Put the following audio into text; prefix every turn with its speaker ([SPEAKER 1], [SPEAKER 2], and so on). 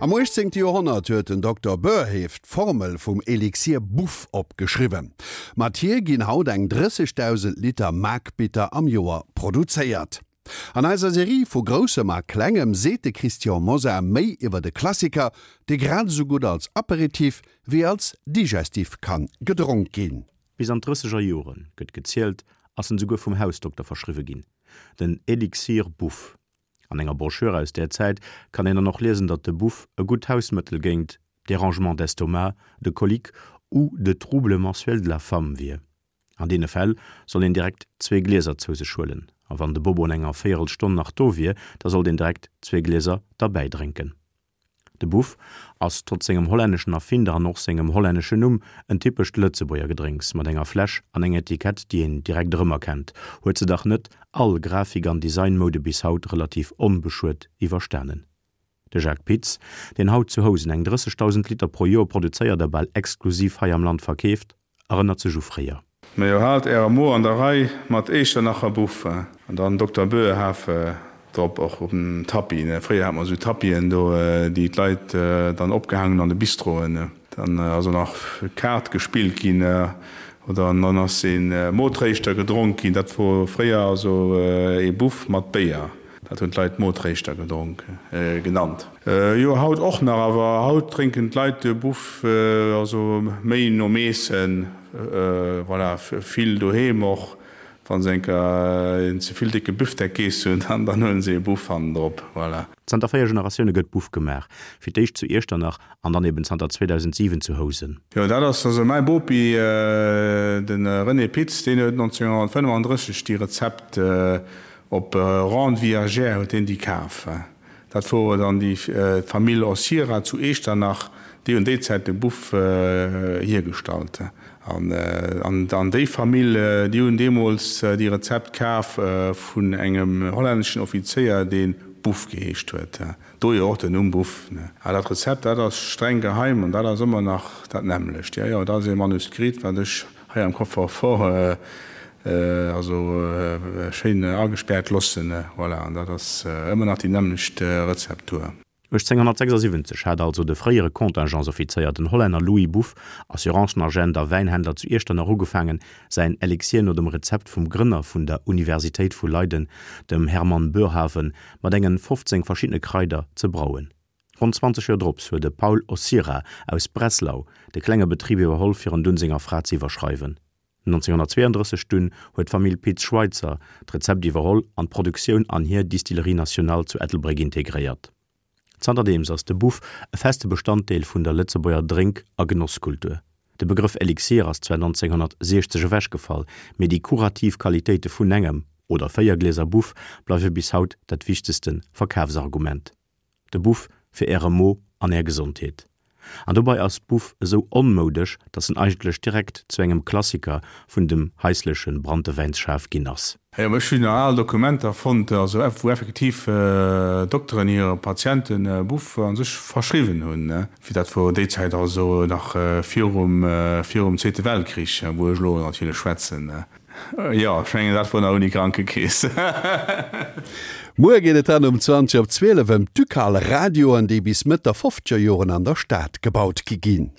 [SPEAKER 1] Am 18. Joerhonnert huet den Dokter Boerhaave d'Formel vum Elixir Buff opgeschriwwen. Mat hir ginn haut eng 30.000 Liter Maakbitter am Joer produzéiert. An eiser Serie vu Groussem a Klengem seet de Christian Mosar méi iwwer e Klassiker, dee grad esou gutt als Aperitif wéi als Digestif kann gedronk ginn.
[SPEAKER 2] Bis an d'Drësseger Joren, gëtt gezielt, ass en souguer vum Hausdokter verschriwwe ginn, den Elixir Buff. An enger Broschür aus där Zäit kann een dann och liesen, datt de Buff e gutt Hausmëttel géint Dérangements d'estomac, de coliques ou de troubles mensuels de la femme wier. An deene Fäll soll een direkt zwee Glieser zou sech huelen, a wann de Bobo an enger Véierelstonn nach do wier, da sollt een direkt zwee Glieser derbäi drénken. De Buff ass, trotz sengem hollänneschen Erfinder an och sengem hollänneschen Numm, en typescht Lëtzebuerger Gedrénks mat enger Fläsch an enger Etikett, déi een direkt erëmerkennt, huet se dach net all Grafik an Designmoude bis haut relativ onbeschuet iwwerstanen. De Jacques Pitz, deen haut zu Housen eng 30.000 Liter pro Joer produzéiert a bal exklusiv hei am Land verkeeft, erënnert sech u fréier.
[SPEAKER 3] Majo, haalt ärer Mo an der Rei mat Echternacher Buff an dann Dokter Boerhaave drop, och op dem Tapis, ne. Fréier hat mer esou Tapisen do, déi d'Leit dann opgehaang hunn an de Bistroen. Dann ass och nach Kaart gespillt ginn oder dann ass ee Motréischter gedronk ginn. Dat wor fréier also ee Buff mat Béier. Dat hunn d'Leit Motréischter gedronk genannt. Jo, haut och nach, awer haut drénken d'Leit de Buff also méi nom Eessen, voilà, vill doheem och. Wa se enker een ze vill décke Büftek geess hunn, dann huelen se ee Buff hannendrop, voilà.
[SPEAKER 2] Zanter 4 Generatioune gëtt Buff gemaach, fir d'éischt zu Iechternach an dann eben zanter 2007 zu Housen.
[SPEAKER 3] Jo, dat ass also mäi Bopi, de René Pitz, deen huet 1935 déi Rezept Op Rente viagère huet hien déi kaf. Dat wor dann déi d'Famill Ossira zu Echternach, déi hunn déi Zäit de Buff hiergestallt. An déi Famill, déi hunn deemools déi Rezept kaf vun engem hollänneschen Offizéier, dee Buff geheescht huet. Dohier och den Numm Buff. A dat Rezept, dat ass streng geheim an dat ass ëmmer nach dat nämmlecht. Jo, jo, dat ass ee Manuskript, wat ech hei am Coffre-fort also schéin agespärt lossen. Voilà, an dat ass ëmmer nach déi nämmlecht Rezeptur.
[SPEAKER 2] 1876 hat also de fréiere Contingentsoffizéier, den Hollänner Louis Buff, Assurancenagent a Wäinhändler zu Iechternach ugefaangen, säin Elixier no dem Rezept vum Grënner vun der Universitéit vu Leiden, dem Hermann Boerhaave, mat engen 15 verschiddene Kraider ze brauen. Ronn 20 Joer drops huet de Paul Ossira aus Breslau de klenge Betrib iwwerholl fir en dunn senger Fra ze iwwerschreiwen. 1932 dunn huet d'Famill Pitz-Schweitzer d'Rezept iwwerholl an d'Produktioun an hir Distillerie Nationale zu Ettelbréck integréiert. Zanterdeems ass de Buff e feste Bestanddeel vun der Lëtzebuerger Drénk a Genosskultur. De Begrëff Elixir ass zwar 1960 ewechgefall, mee déi kurativ Qualitéite vun engem oder 4 Glieser Buff bleiwe bis haut dat wichtegste Verkafsargument. De Buff fir äre Mo an är Gesondheet. An dobei ass Buff esou onmoudesch, dass en eigentlech direkt zu engem Klassiker vun dem haisleche Branntewäinsschaf ginn ass.
[SPEAKER 3] Jo, ech hunn nach al Dokumenter fonnt, also wou effektiv Dokteren hire Patiente Buff a sech verschriwwen hunn. Wéi dat wor déi Zäit, also nach virum virum Zweete Weltkrich, wou ech elo natierlech schwätzen. Jo, ech mengen dat wor nach ouni Krankekeess.
[SPEAKER 1] Muer geet et dann um 20 op 12 ëm d'Ducal Radioen, déi bis Mëtt der fofzeger Joren an der Stad gebaut gi ginn.